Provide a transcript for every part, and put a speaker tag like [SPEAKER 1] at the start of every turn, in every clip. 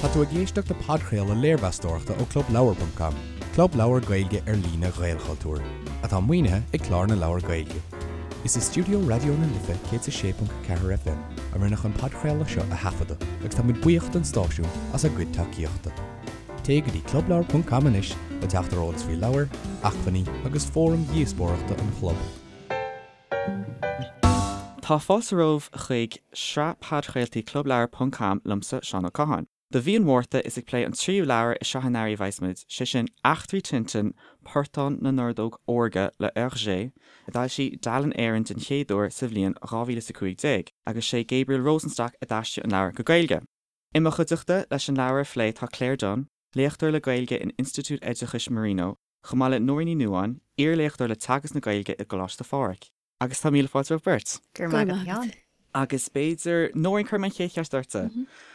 [SPEAKER 1] Tá tú ag éisteacht le podchraoladh léirmheastóireachta ó Clubleabhar ponc com, club leabhar Gaeilge ar líne Ghaelchultúir, atá maoinithe ag Clár na Leabhar Gaeilge. Is i stiúideo Raidió na Life 106.4 FM a rinneadh an podchraoladh seo a thaifeadadh agus tá muid buíoch don stáisiún as a gcuid tacaíochta. Téigh go dtí clubleabhar ponc com anois le teacht ar eolas faoi leabhair, acmhainní agus fóraim dhíospóireachta an chlub.
[SPEAKER 2] Tá fáilte romhaibh chuig sraith podchraoltaí Clubleabhar ponc com liomsa, Seán Ó Catháin. Do mhí an Mhárta is ag plé an tríú leabhar i sraith an earraigh a bheas muid, sé sin Eachtraí Tintin, Portán na nOrdóg Órga le Hergé, a d'fhoilsigh Dalen Éireann den chéad uair sa bhliain 2015, agus sé Gabriel Rosenstock a d'aistrigh an leabhar go Gaeilge. I mo chuideachta leis an leabhar a phlé tá Claire Dunne, léachtóir le Gaeilge in Institiúid Oideachais Marino, chomh maith le Nóirín Ní Nuadháin, iarléachtóir le teagasc na Gaeilge i gColáiste Phádraig. Agus tá míle fáilte romhaibh beirt.
[SPEAKER 3] Go raibh maith agat, a Sheáin.
[SPEAKER 2] Agus b'fhéidir, Nóirín, cuirfidh mé an chéad cheist ortsa.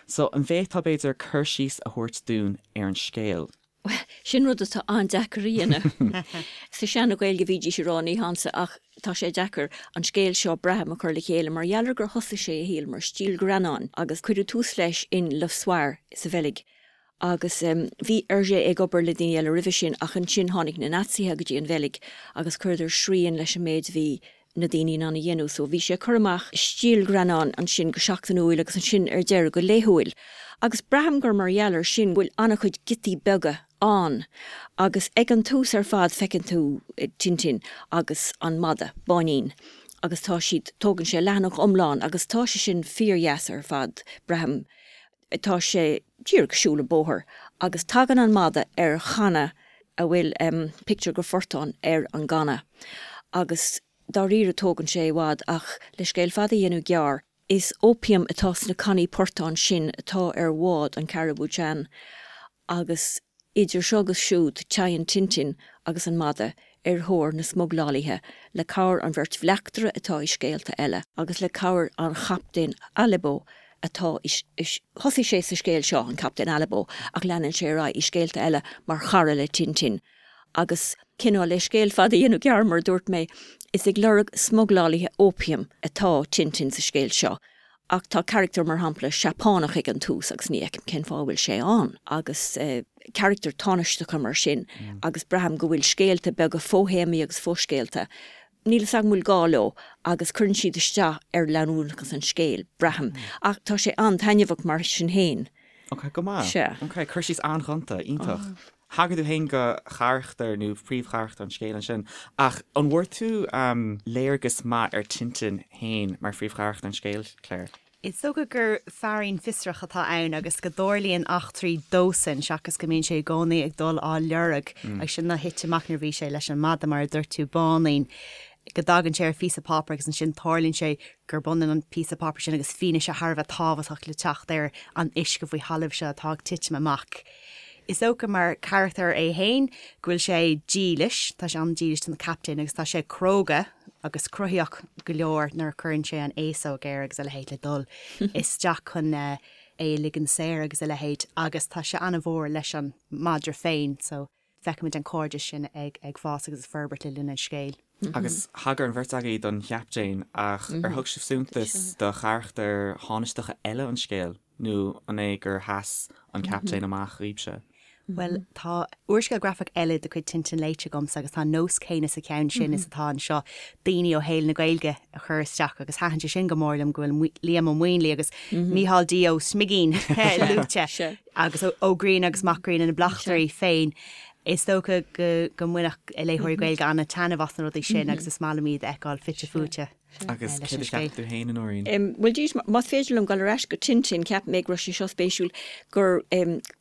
[SPEAKER 2] So, an bhféadfá, b'fhéidir, cur síos a thabhairt dúinn ar an scéal?
[SPEAKER 4] Bhuel, sin rud atá an-deacair a dhéanamh. Sa seana-Ghaeilge bhídís ag rá ní hansa ach tá sé deacair an scéal seo, braithim, a chur le chéile mar gheall ar gur thosaigh sé a shaol mar stíl ghreannáin agus cuireadh tús leis in Le Soir sa Bheilg. Agus bhí Hergé ag obair le daoine eile roimhe sin ach ansin tháinig na Naitsithe go dtí an Bheilg agus chuireadar srian leis an méid a bhí na daoine in ann a dhéanamh. So bhí sé ag cur amach stiallghreannáin ansin go seachtainiúil agus ansin ar deireadh go laethúil. Agus braithim gur mar gheall ar sin go bhfuil an-chuid giotaí beaga ann. Agus ag an tús ar fad feiceann tú Tintin agus an madadh, Báinín, agus tá siad, tógann sé leathanach iomlán agus tá sé sin fíordheas ar fad, braithim. Tá sé díreach ag siúl an bóthar agus tagann an madadh ar channa a bhfuil pictiúr de phortán ar an gcanna agus dáiríre tógann sé i bhfad ach le scéal fada a dhéanamh gearr, is opium atá sna cannaí portáin sin atá ar bhád an Caribou Chan agus idir seo agus siúd téann Tintin agus an madadh ar thóir na smuglálaithe le cabhair an bheirt bhleachtaire atá i scéalta eile agus le cabhair an Chaptaen Alibo atá i Thosaigh sé sa scéal seo, an Captaen Alibo, ach leanann sé ar aghaidh i scéalta eile mar chara le Tintin agus cineál le scéal fada a dhéanamh gearr mar a dúirt mé, is ag lorg smuglálaithe opium atá Tintin sa scéal seo. Ach tá carachtar, mar shampla, Seapánach ag an tús agus ní fheicim cén fáth a bhfuil sé ann, agus carachtair tánaisteacha mar sin, agus braithim go bhfuil scéalta beaga fo-théamaí agus fo-scéalta, níl fhios agam an bhfuil gá leo, agus cuireann siad isteach ar leanúnachas an scéil, braithim. Ach tá sé an-taitneamhach mar sin féin.
[SPEAKER 2] Ok, go maith.
[SPEAKER 4] Sea.
[SPEAKER 2] Ok, cur síos an-ghonta, iontach. Thagair tú féin do charachtar nó phríomhcharachtar an scéil ansin, ach an bhfuair tú léargas maith ar Tintin féin mar phríomhcharachtar an scéil, Claire?
[SPEAKER 3] Is dócha gur feairín fiosrach atá ann agus go dtarlaíonn eachtraí dósan seachas go mbíonn sé i gcónaí ag dul á lorg. Agus sin a thit amach nuair a bhí sé leis an mada, mar a dúirt tú, Báinín, go dtagann sé ar phíosa páipéir agus ansin tarlaíonn sé gurb ionann an píosa páipéir sin agus fianaise thar a bheith tábhachtach le teacht ar an uisce faoi thalamh seo atá ag titim amach. Is dócha mar charachtar é fhéin go bhfuil sé dílis, tá sé an-dílis don chaptaen agus tá sé cróga agus cruthaíoch go leor nuair a chuireann sé an fhéasóg air agus a leithéid le dul isteach chun é a ligean saor agus a leithéid agus tá sé an-mhór leis an madra féin so feicimid an cairdeas sin ag fás agus ag forbairt le linn an scéil.
[SPEAKER 2] Agus thagair an bheirt agaibh don chaptaen ach ar thug sibh suntas do charachtair thánaisteacha eile an scéil? Nó an é gur sheas an captaen amach dhaoibhse?
[SPEAKER 3] Bhuel, tá úrscéal grafach eile de chuid Tintin léite agamsa agus tá an nós céanna sa cheann sin is atá anseo, daoine ó shaol na Gaeilge a chur isteach agus thaitin sé sin go mór liom go bhfuil Liam Ó Maonlaí agus Mícheál D. Ó Smigín luaite agus Ó Grianna agus Mac Grianna na bleachtairí féin. Is dócha go mbainfeadh léitheoirí Gaeilge an-taitneamh as na rudaí sin agus is maith liom iad a fheiceáil fite fuaite.
[SPEAKER 2] Agus céard a cheap tú féin, a
[SPEAKER 4] Nóirín? Bhuel, dís, más féidir liom dul ar ais go Tintin, cheap mé go raibh sé seo spéisiúil, gur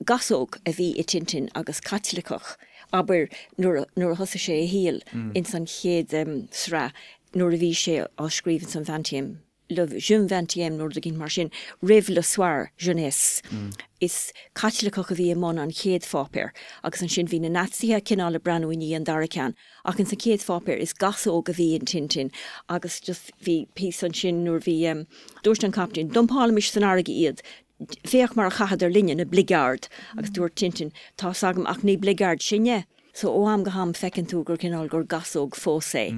[SPEAKER 4] gasóg a bhí i Tintin agus Caitliceach, abair, nuair a thosaigh sé a shaol ins an chéad sraith, nuair a bhí sé á scríobh ins an Vingtième, Le Jeune Vingtième nó rud éigin mar sin, roimh Le Soir Jeunesse. Is Caitliceach a bhí i mbun an chéad pháipéir agus ansin bhí na Naitsithe cineál ag breathnú i ndiaidh an dara ceann. Ach ins an chéad pháipéar is gasóg a bhí in Tintin agus just bhí píosa ansin nuair bhí em dúirt an captaen dumpálaimis san fharraige iad féach mar a chaitheadar linne na bligeaird agus dúirt Tintin tá's agam ach ní bligeaird sinne. So ó am go ham feiceann tú gur cineál gur gasóg fós é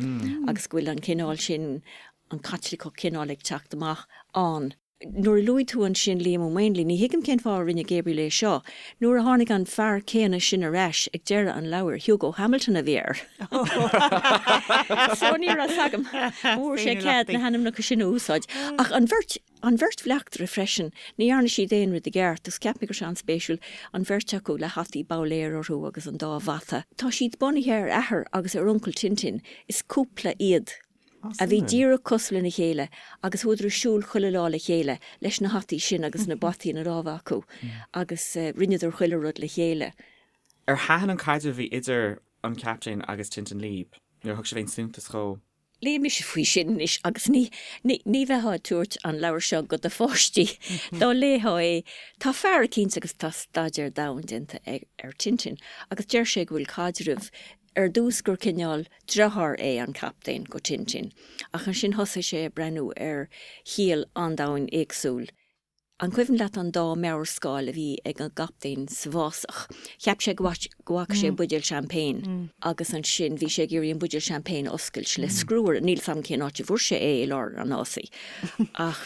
[SPEAKER 4] agus go bhfuil an cineál sin an Caitliceach cineál ag teacht amach ann. Nuair a luaigh tú ansin Liam Ó Maonlaí, ní thuigim cén fáth a rinne Gabriel é seo. Nuair a tháinig an fear céanna sin ar ais ag deireadh an leabhair, Hugo Hamilton a bhí air. So ní raibh 's agam an bhfuair sé cead na hainmneacha sin a úsáid. Ach an bheirt, an bheirt bhleachtaire freisin, ní dhearna siad aon rud i gceart agus cheap mé go raibh sé an-spéisiúil, an bheirt acu le hataí babhléir orthu agus an dá bhata. Tá siad bunaithe ar athair agus ar uncail Tintin, is cúpla iad. a bhí díreach cosúil lena chéile agus chuadar ag siúl chuile lá le chéile leis na hataí sin agus na bataí ina lámha acu agus rinneadar chuile rud le chéile.
[SPEAKER 2] Ar thaitin an caidreamh a bhí idir an Captaen agus Tintin libh? Nó ar thug sibh aon suntas dhó?
[SPEAKER 4] Léigh mise faoi sin anois agus ní, ní, ní bheifeá ag tabhairt an leabhar seo go do pháistí dá léifeá é. Tá fear eicínt agus tá staidéar domhain déanta ar Tintin agus deir sé go bhfuil caidreamh Ar dtús gur cineál deartháir é an captaen go Tintin, ach ansin thosaigh sé ag breathnú ar chiall an-domhain éagsúil. An cuimhin leat an dá mheabharscáil a bhí ag an gcaptaen sa bhfásach? Cheap sé go bhfaca sé buidéal champagne agus ansin bhí sé ag iarraidh an buidéal champagne a oscailt le scriúire. Níl 's agam cén áit a bhfuair sé é i lár an fhásaigh ach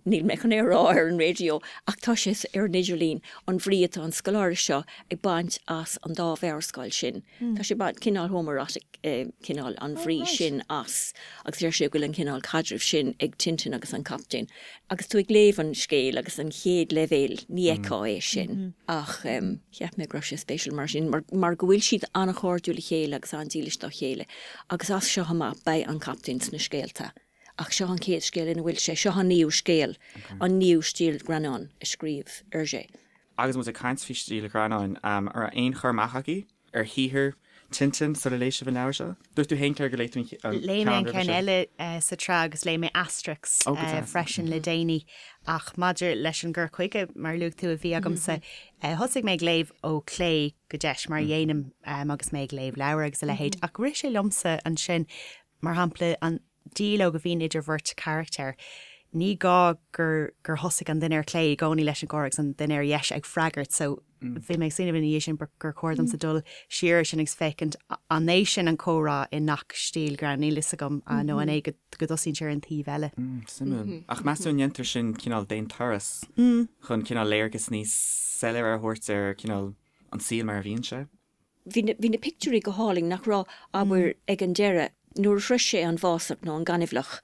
[SPEAKER 4] níl mé chun é a rá ar an raidió ach tá sé ar an idirlíon, an bhrí atá an scoláire seo ag baint as an dá mheabharscáil sin. Tá sé baint cineál homoerotic cineál an bhrí sin as agus deir sé go bhfuil an cineál caidrimh sin ag Tintin agus an Captaen. Agus tú ag léamh an scéil agus an chéad leibhéal ní fheicfeá é sin ach cheap mé go raibh sé spéisiúil mar sin mar go bhfuil siad an-chairdiúil le chéile agus an-dílis dá chéile agus as seo amach beidh an Captaen sna scéalta. Ach seo an chéad scéal ina bhfuil sé. Seo an naoú scéal, an naoú stiallghreannán a scríobh Hergé.
[SPEAKER 2] Agus muid ag caint faoi stiallghreannáin, an raibh aon chur amach agaibh ar shaothar Tintin sula léigh sibh an leabhar seo? Dúirt tú féin, Claire, gur léigh tú an ceann roimhe
[SPEAKER 3] Léigh mé an ceann eile sa tsraith agus léigh mé Asterix freisin le déanaí. Ach maidir leis an gcur chuige, mar a luaigh tú, a bhí agamsa, thosaigh mé ag léamh ó chlé go deis, mar a dhéanaim agus mé ag léamh leabhar agus a leithéid. Ach rith sé liomsa ansin, Mar shampla, an dialóg a bhíonn idir bheirt charachtar, ní gá gur gur thosaigh an duine ar clé i gcónaí leis an gcomhrá agus an duine ar dheis ag freagairt so bhí mé ag smaoineamh ina dhiaidh sin gur chóir domsa dul siar ar sin agus féachaint an é sin an comhrá i ngach stiallghreannán, níl fhios agam nó an é go go dtosaíonn sé ar an taobh eile.
[SPEAKER 2] Suimiúil. Ach meas tú an ndéantar sin cineál d'aon turas chun cineál léargas níos soiléire a thabhairt ar cineál an saol mar a bhíonn sé?
[SPEAKER 4] Bhí na, bhí na pictiúirí go hálainn, nach raibh, abair, ag an deireadh, nuair a shrois sé an bhfásach nó an gaineamhlach.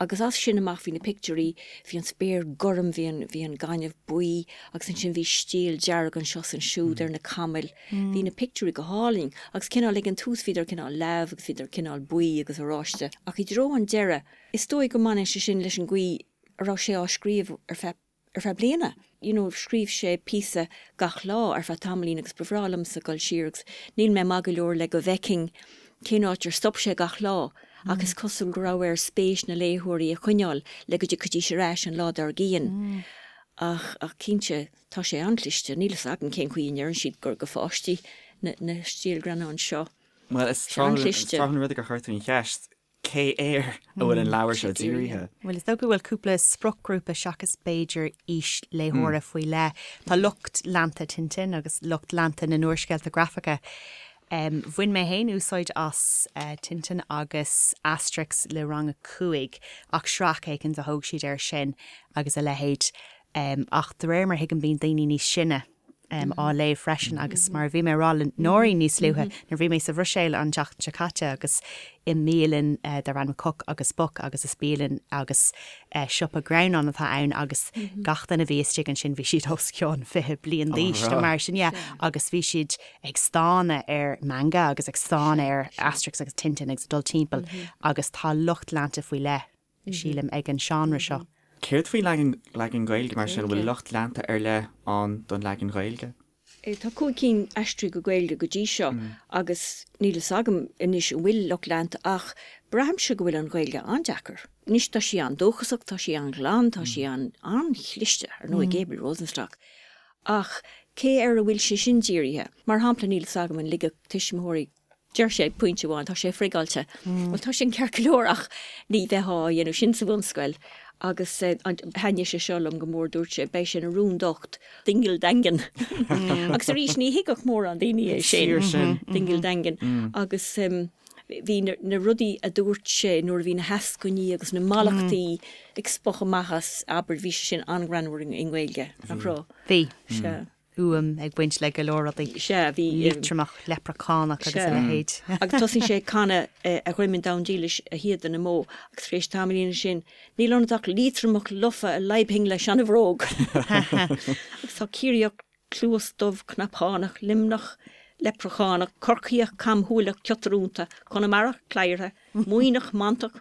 [SPEAKER 4] Agus as sin amach bhí na pictiúirí, bhí an spéir gorm, bhí an, bhí an gaineamh buí agus ansin bhí stiall dearg anseo is ansiúd ar na camaill. Bhí na pictiúirí go hálainn agus cineál ag an tús bhíodar cineál leamh agus bhíodar cineál buí agus oráiste ach i dtreo an deireadh, is dóigh go mbaineann sé sin leis an gcaoi a raibh sé á scríobh ar feadh ar feadh bliana. You know, scríobh sé píosa gach lá ar feadh tamaillín agus ba bhreá liomsa dul siar agus níl mé maith go leor le go bhfeicfinn cén áit ar stop sé gach lá ach is cosúil go raibh air spéis na léitheoirí a choinneáil le go dtiocfaidís ar ais an lá dár gcionn. Ach, ach cinnte, tá sé an-chliste. Níl fhios agam cén chaoi a ndeireann siad gur go pháistí na, na stiallghreannáin seo.
[SPEAKER 2] Bhuel, is tráthúil an rud gur chuir tú an cheist. Cé air a bhfuil an leabhar seo dírithe?
[SPEAKER 3] Bhuel, is dócha go bhfuil cúpla spriocghrúpa seachas b'fhéidir aois léitheora faoi leith. Tá lucht leanta Tintin agus lucht leanta na n-úrscéalta grafacha. Bhain mé féin úsáid as Tintin agus Asterix le rang a 5 ach sraith éicint a thóg siad air sin agus a leithéid. Ach de réir mar a thuigim bíonn daoine níos sine á léamh freisin agus mar a bhí mé a rá le Nóirín níos luaithe nuair a bhí mé sa Bhruiséil an tseachtain seo caite agus i mbialann darb ainm Coq agus Boc agus is bialann agus siopa greannán atá ann agus gach duine a bhí istigh ansin bhí siad os cionn 20 bliain d'aois nó mar sin yeah agus bhí siad ag stánadh ar manga agus ag stánadh ar Asterix agus Tintin agus ag dul timpeall agus tá lucht leanta faoi leith sílim, ag an seánra seo.
[SPEAKER 2] Céard faoin leagan, leagan Gaeilge mar sin? An bhfuil lucht leanta ar leith ann don leagan Ghaeilge?
[SPEAKER 4] Tá 5 cinn aistrithe go Gaeilge go dtí seo agus níl fhios agam anois an bhfuil lucht leanta ach braithimse go bhfuil an Ghaeilge an-deacair. Anois tá sí an-dóchasach, tá sí an-ghlan, tá sí an-chliste, ar ndóigh, Gabriel Rosenstock. Ach cé air a bhfuil sé sin dírithe? Mar shampla níl fhios agam an ligfeadh tuismitheoirí Deir sé ag pointe amháin, tá sé frigeáilte. Bhuel, tá sin ceart go leor ach ní bheifeá á dhéanamh sin sa bhunscoil. Agus thaitnigh sé seo liom go mór, dúirt sé, beidh sé ina rún docht, dingle daingean. Agus arís, ní thuigfeadh mórán daoine é sin. Dingle daingean. Agus. Bhí na rudaí a dúirt sé nuair a bhí na heascainí agus na mallachtaí ag spochadh amach as, abair, bhí sé sin an-ghreannmhar i nGaeilge, nach raibh?
[SPEAKER 3] Bhí. Sea. Uaim ag baint le go leor rudaí.
[SPEAKER 4] Sea, bhí.
[SPEAKER 3] Liatromach, leipreachánach agus a leithéid.
[SPEAKER 4] Agus tosaíonn sé ag canadh A Dhroim an Domhain Dílis, a Shíoda na mBó, agus tar éis tamaillín ansin, Níl ionat ach Liatromach lofa a leidhbfinn le seanabhróg. Agus tá Ciarraíoch cluas dubh cnapánach, Luimneach leipreachánach, Corcaíoch camshúileach ciotrúnta, Conamarach cladhartha, Muimhneach mantach,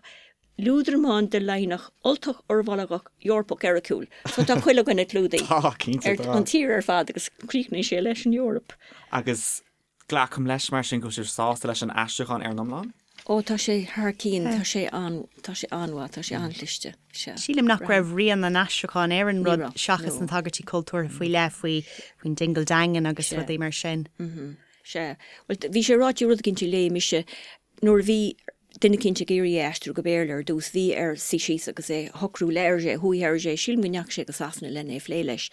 [SPEAKER 4] Liúdramán de Laighneach, Ultach urmholgach, Eorpach eiriciúil. So tá chuile dhuine clúdaithe.
[SPEAKER 2] Tá, cinnte
[SPEAKER 4] tá. An tír ar fad agus críochnaíonn sé leis an Eoraip.
[SPEAKER 2] Agus Glacaim leis, mar sin, go bhfuil sibh sásta leis an aistriúchán ar an iomlán?
[SPEAKER 4] Ó, tá sé thar cinn, tá sé an, tá sé an-mhaith, tá sé an-chliste,
[SPEAKER 3] sea. Sílim nach raibh rian an aistriúcháin ar an rud seachas na tagairtí cultúrtha faoi leith, faoi, faoin Dingle Dangan agus rudaí mar sin.
[SPEAKER 4] Sea. Bhuel, bhí sé ráite rud eicínt a léigh mise nuair a bhí duine eicínt ag iarraidh é a aistriú go Béarla ar dtús, bhí air suí síos agus é a shocrú le Hergé, chuaigh Hergé, sílim go ndeachaigh sé go Sasana lena é a phlé leis,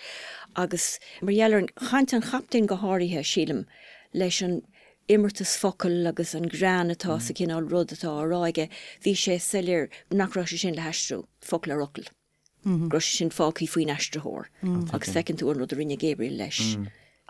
[SPEAKER 4] agus mar gheall ar an chaint an chaptaein go háirithe, sílim, leis an imeartas focal agus an greann atá sa chineál rud atá á rá aige, bhí sé soiléir nach raibh sé sin le haistriú, focal ar fhocal. go raibh sé sin fágtha faoin aistritheoir agus feiceann tú an rud a rinne Gabriel leis.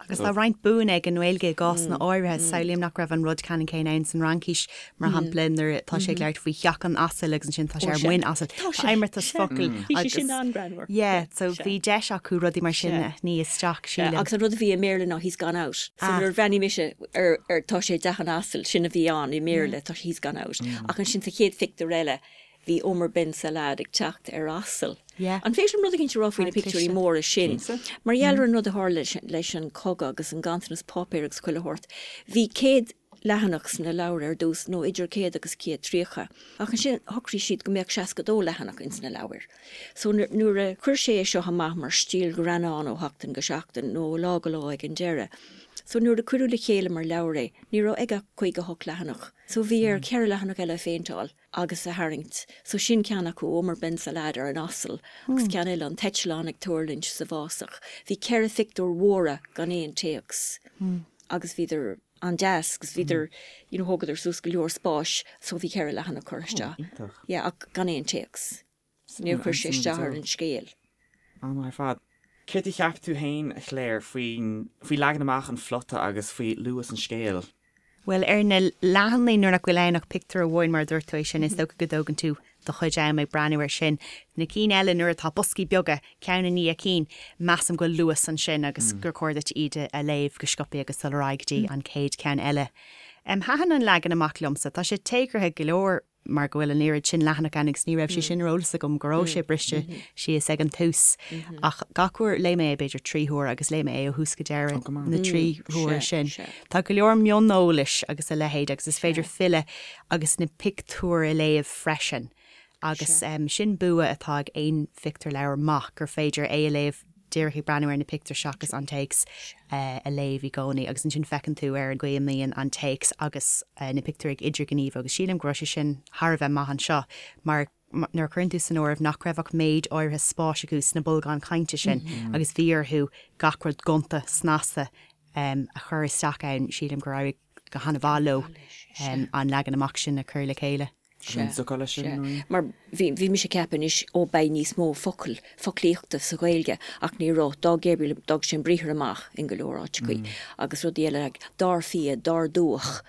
[SPEAKER 3] Agus tá roinnt buanna ag an nGaeilge i gcásanna áirithe. Samhlaím nach raibh an rud ceannann céanna ann san Fhraincis, mar shampla, nuair atá sé ag labhairt faoi theach an asail agus ansin tá sé ar muin asail. Tá imeartas focal
[SPEAKER 4] agus. Bhí sé sin an-ghreannmhar.
[SPEAKER 3] Yeah, so bhí deis acu rudaí mar sin a shní isteach,
[SPEAKER 4] sílim. Agus an rud a bhí i mBéarla ná he's gone out. So nuair a bhreathnaigh mise ar ar tá sé i dteach an asail, sin a bhí ann i mBéarla, tá sé he's gone out. Ach ansin sa chéad phictiúr eile, Bhí Omar Ben Salaad ag teacht ar asal. An féidir liom rud eicínt a rá faoi na pictiúirí móra sin? Mar gheall ar an rud a tharla leis an cogadh agus an ganntanas páipéir agus chuile shórt, bhí 100 leathanach sna leabhair ar dtús, nó idir 100 agus 130. Ach ansin shocraigh siad go mbeadh 62 leathanach ins na leabhair. So nuair a chuir sé é seo amach mar stíl ghreannán ó sheachtain go seachtain, nó ó lá go lá ag an deireadh, so nuair a cuireadh le chéile mar leabhar é, ní raibh aige ach 58 leathanach. So bhí air ceithre leathanach eile a phéinteáil. agus a tharraingt. So sin ceann acu, Omar Ben Salaad ar an asal agus ceann eile, an t-eitleán ag tuirlingt sa bhfásach. Bhí ceithre phictiúr mhóra gan aon téacs agus bhíodar an-deas agus bhíodar, you know, thógadar suas go leor spáis so bhí ceithre leathanach curtha isteach.
[SPEAKER 2] Iontach.
[SPEAKER 4] Yeah, ach gan aon téacs. Níor chuir sé isteach ar an scéal.
[SPEAKER 2] An-mhaith ar fad. Céard a cheap tú féin, a Chléir, faoin, faoi leagan amach an phlota agus faoi luas an scéil?
[SPEAKER 3] Bhuel, ar na leathanaigh nuair nach bhfuil ann ach pictiúr amháin, mar a dúirt tú é sin, is dócha go dtógann tú do chuid am ag breathnú air sin. Na cinn eile, nuair atá boscaí beaga, ceann i ndiaidh cinn, measaim go bhfuil luas ansin agus gur chóir duit iad a léamh go sciobtha agus dul ar aghaidh go dtí an chéad cheann eile. Thaitin an leagan amach liomsa. Tá sé téagartha go leor. mar go bhfuil an oiread sin leathanach ann agus ní raibh sé sin ar eolas agam go raibh sé briste síos ag an tús ach gach uair léigh mé é b'fhéidir trí huaire agus léigh mé é ó thús go deireadh na trí huaire sin. Tá go leor mioneolais agus a leithéid agus is féidir filleadh agus na pictiúir a léamh freisin agus sin bua atá ag aon phictiúrleabhar maith gur féidir é a léamh díreach ag breathnú ar na pictiúir seachas an téacs a léamh i gcónaí agus ansin feiceann tú ar an gcaoi a mbíonn an téacs agus na pictiúir ag idirghníomhú agus sílim go raibh sé sin thar a bheith maith anseo mar nuair a chuireann tú san áireamh nach raibh ach méid áirithe spáis acu sna bolgáin chainte sin agus bhí orthu gach rud gonta snasta a chur isteach ann, sílim gur éirigh go han-mhaith leo an leagan amach sin a chur le chéile.
[SPEAKER 4] Sea, sea. Mar bhí, bhí mise ag ceapadh anois, ó beidh níos mó focal, foclaíochta sa Ghaeilge ach ní raibh. D'fhág Gabriel, d'fhág sé an briathar amach in go leor áiteachaí agus rudaí eile like dar fia, dar dúch,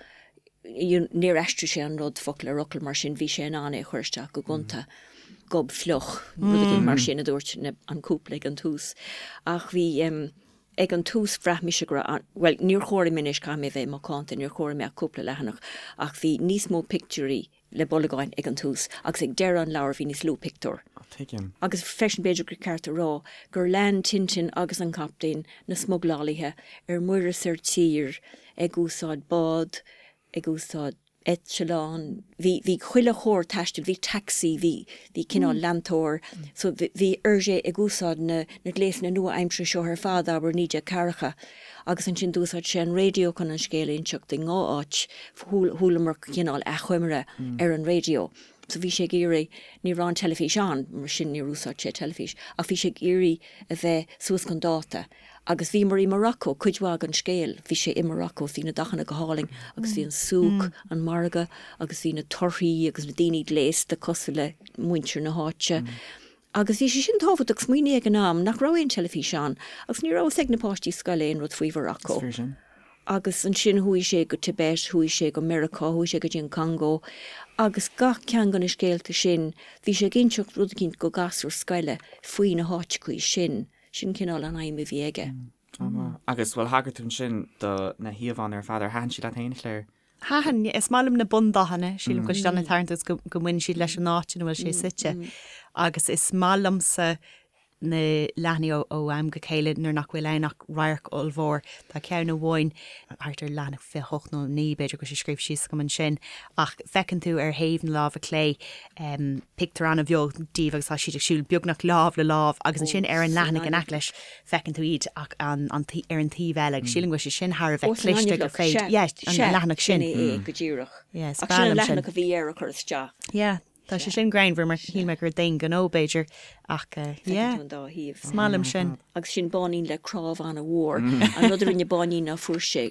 [SPEAKER 4] you know, níor aistrigh sé an rud focal ar fhocal mar sin, bhí sé in ann é a chur isteach go gonta. Gob fliuch, rud éigin mar sin a dúirt na, an cúpla ag an tús. Ach bhí, em, ag an tús bhraith mise go raibh an, bhuel, níor chomhair mé anois, caithfidh mé a bheith macánta, níor chomhair mé ach cúpla leathanach, ach bhí níos mó pictiúirí le bolgáin ag an tús agus ag deireadh an leabhair bhí níos lú pictiúr.
[SPEAKER 2] Tuigim.
[SPEAKER 4] Agus freisin b'fhéidir gur ceart a rá gur lean Tintin agus an Captaen na smuglálaithe ar muir is ar tír ag úsáid bád, ag úsáid eitleán, bhí, bhí chuile chóir taistil, bhí taxi, bhí, bhí cineál leantóir, so bhí Hergé ag úsáid na, na gléasanna nua-aimseartha seo ar fad, abair, 1940, agus ansin d'úsáid sé an raidió chun an scéal a inseacht i ndhá áit, chualamar cineál achoimre ar an raidió. So bhí sé ag iarraidh, ní raibh an teilifís ann, mar sin níor úsáid sé teilifís, ach bhí sé ag iarraidh a bheith suas chun dáta. Agus bhíomar i Morocco, cuid mhaith den scéal, bhí sé i Morocco, bhí na dathanna go hálainn agus bhí an souk, an margadh, agus bhí na torthaí agus na daoine gléasta cosúil le muintir na háite. Agus bhí sé sin tábhachtach, smaoinigh ag an am nach raibh aon teilifís ann agus ní raibh fhios ag na páistí scoile aon rud faoi Mhorocco.
[SPEAKER 2] Is fíor sin.
[SPEAKER 4] Agus ansin chuaigh sé go Tibet, chuaigh sé go Meiriceá, chuaigh sé go dtí an Congó agus gach ceann de na scéalta sin, bhí sé ag inseacht rud eicínt go gasúr scoile faoi na háiteachaí sin. Sin cineál an aidhm a bhí aige.
[SPEAKER 2] An-mhaith. Agus, bhuel, thagair tú ansin do na híomhánna ar fad. Ar thaitin siad leat féin, a Chléir?
[SPEAKER 3] Thaitin. Is maith liom na bundathanna. Sílim go bhfuil siad an-tarraingteach agus go mbaineann siad leis an áit ina bhfuil sé suite. Agus is maith liomsa na leathanaigh ó am go chéile nuair nach bhfuil ann ach radharc ollmhór. Tá ceann amháin thart ar leathanach 28 nó 9 b'fhéidir go bhfuil sé scríofa síos agam ansin ach feiceann tú ar thaobh na láimhe clé pictiúr an-bheag díobh agus tá siad ag siúl beagnach lámh le lámh agus ansin ar an leathanach in aice leis feiceann tú iad ach an, an, ar an taobh eile agus sílim go bhfuil sé sin thar a bheith cliste gur féidir, yeah, an leathanach
[SPEAKER 4] sin. Sin é go díreach.
[SPEAKER 3] Yeah, is breá liom sin.
[SPEAKER 4] Ach sin an leathanach a bhí air a chur isteach.
[SPEAKER 3] Yeah, tá sé sin greannmhar mar shíl mé gur d'aon ghnó b'fhéidir ach yeah,
[SPEAKER 4] Feiceann tú an dá thaobh.
[SPEAKER 3] Is maith liom sin.
[SPEAKER 4] Agus sin Báinín le cnámh an-mhór. An rud a rinne Báinín ná fuair sé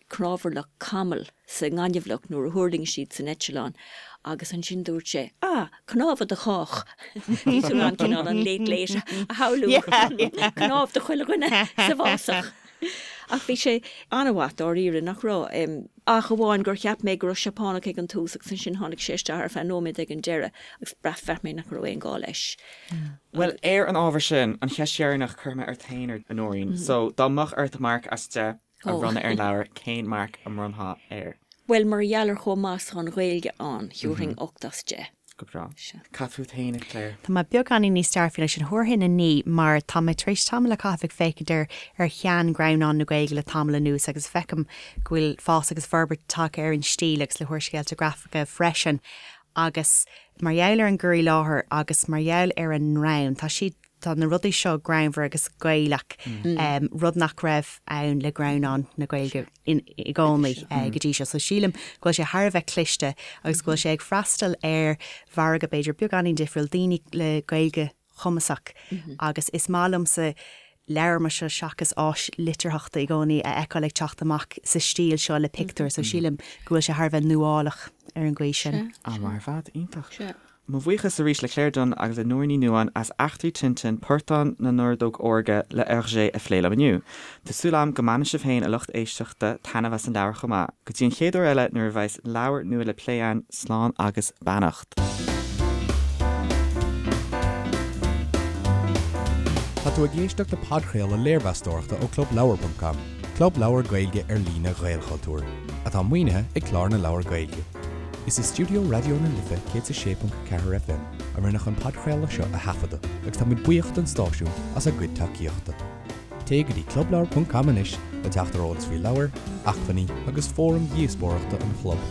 [SPEAKER 4] cnámharlach camall sa ngaineamhlach nuair a thuirling siad san eitleán agus ansin dúirt sé, Ah, cnámha do chách! Bhí tú in ann cineál an Late Late a shamhlú, cnámh do chuile dhuine sa bhfásach. Ach bhí sé an-mhaith dáiríre, nach raibh? Ach amháin gur cheap mé go raibh Seapánach ag an tús agus ansin tháinig sé isteach ar feadh nóiméad ag an deireadh agus bhraith mé nach raibh aon ghá leis.
[SPEAKER 2] Bhuel, ar an ábhar sin, an cheist dheireanach cuirfidh mé ort féin, a Nóirín. So, dá mbeadh ort marc as 10 a bhronnadh ar an leabhar, cén marc a mbronnfá air?
[SPEAKER 4] Bhuel, mar gheall ar chomh maith is atá an Ghaeilge ann, thiúrfainn 8 as 10.
[SPEAKER 2] Go breá. Cad fút féin, a Claire?
[SPEAKER 3] Tá mé beagáinín níos dearfaí leis sin. Thabharfainn 9 mar tá mé tar éis tamall a chaitheamh ag féachaint ar ar shean-ghreannáin na Gaeilge le tamall anuas agus feicim go bhfuil fás agus forbairt tagtha ar an stíl agus le húrscéalta grafacha freisin agus mar gheall ar an gcur i láthair agus mar gheall ar an ngreann, tá siad Tá na rudaí seo greannmhar agus Gaelach, rud nach raibh ann le greannáin na Gaeilge i gcónaí go dtí seo. So sílim go bhfuil sé thar a bheith cliste agus go bhfuil sé ag freastal ar mhargadh b'fhéidir beagáinín difriúil, daoine le Gaeilge chumasach agus is maith liomsa leabhar mar seo seachas áis litearthachta i gcónaí a fheiceáil ag teacht amach sa stíl seo le pictiúir. So sílim go bhfuil sé thar a bheith nuálach ar an gcaoi sin.
[SPEAKER 2] An-mhaith ar fad, iontach. Mo bhuíochas arís le Claire Dunne agus le Nóirín Ní Nuadháin as Eachtraí Tintin, Portán na nOrdóg Órga le Hergé a phlé liom inniu. Tá súil agam go mbainfidh sibh féin, a lucht éisteachta, taitneamh as an leabhar chomh maith. Go dtí an chéad uair eile nuair a bheas leabhar nua le plé againn, slán agus beannacht.
[SPEAKER 1] Tá tú ag éisteacht le podchraoladh léirmheastóireachta ó ClubLeabhar.com, club leabhar Gaeilge ar líne Ghaelchultúir, atá maoinithe ag Clár na Leabhar Gaeilge. Is i stiúideo Raidió na Life 106.4 FM a rinneadh an podchraoladh seo a thaifeadadh agus táimid buíoch don stáisiún as a gcuid tacaíochta. Téigh go dtí clubleabhar.com anois le teacht ar eolas faoi leabhair, acmhainní agus fóraim dhíospóireachta an chlub.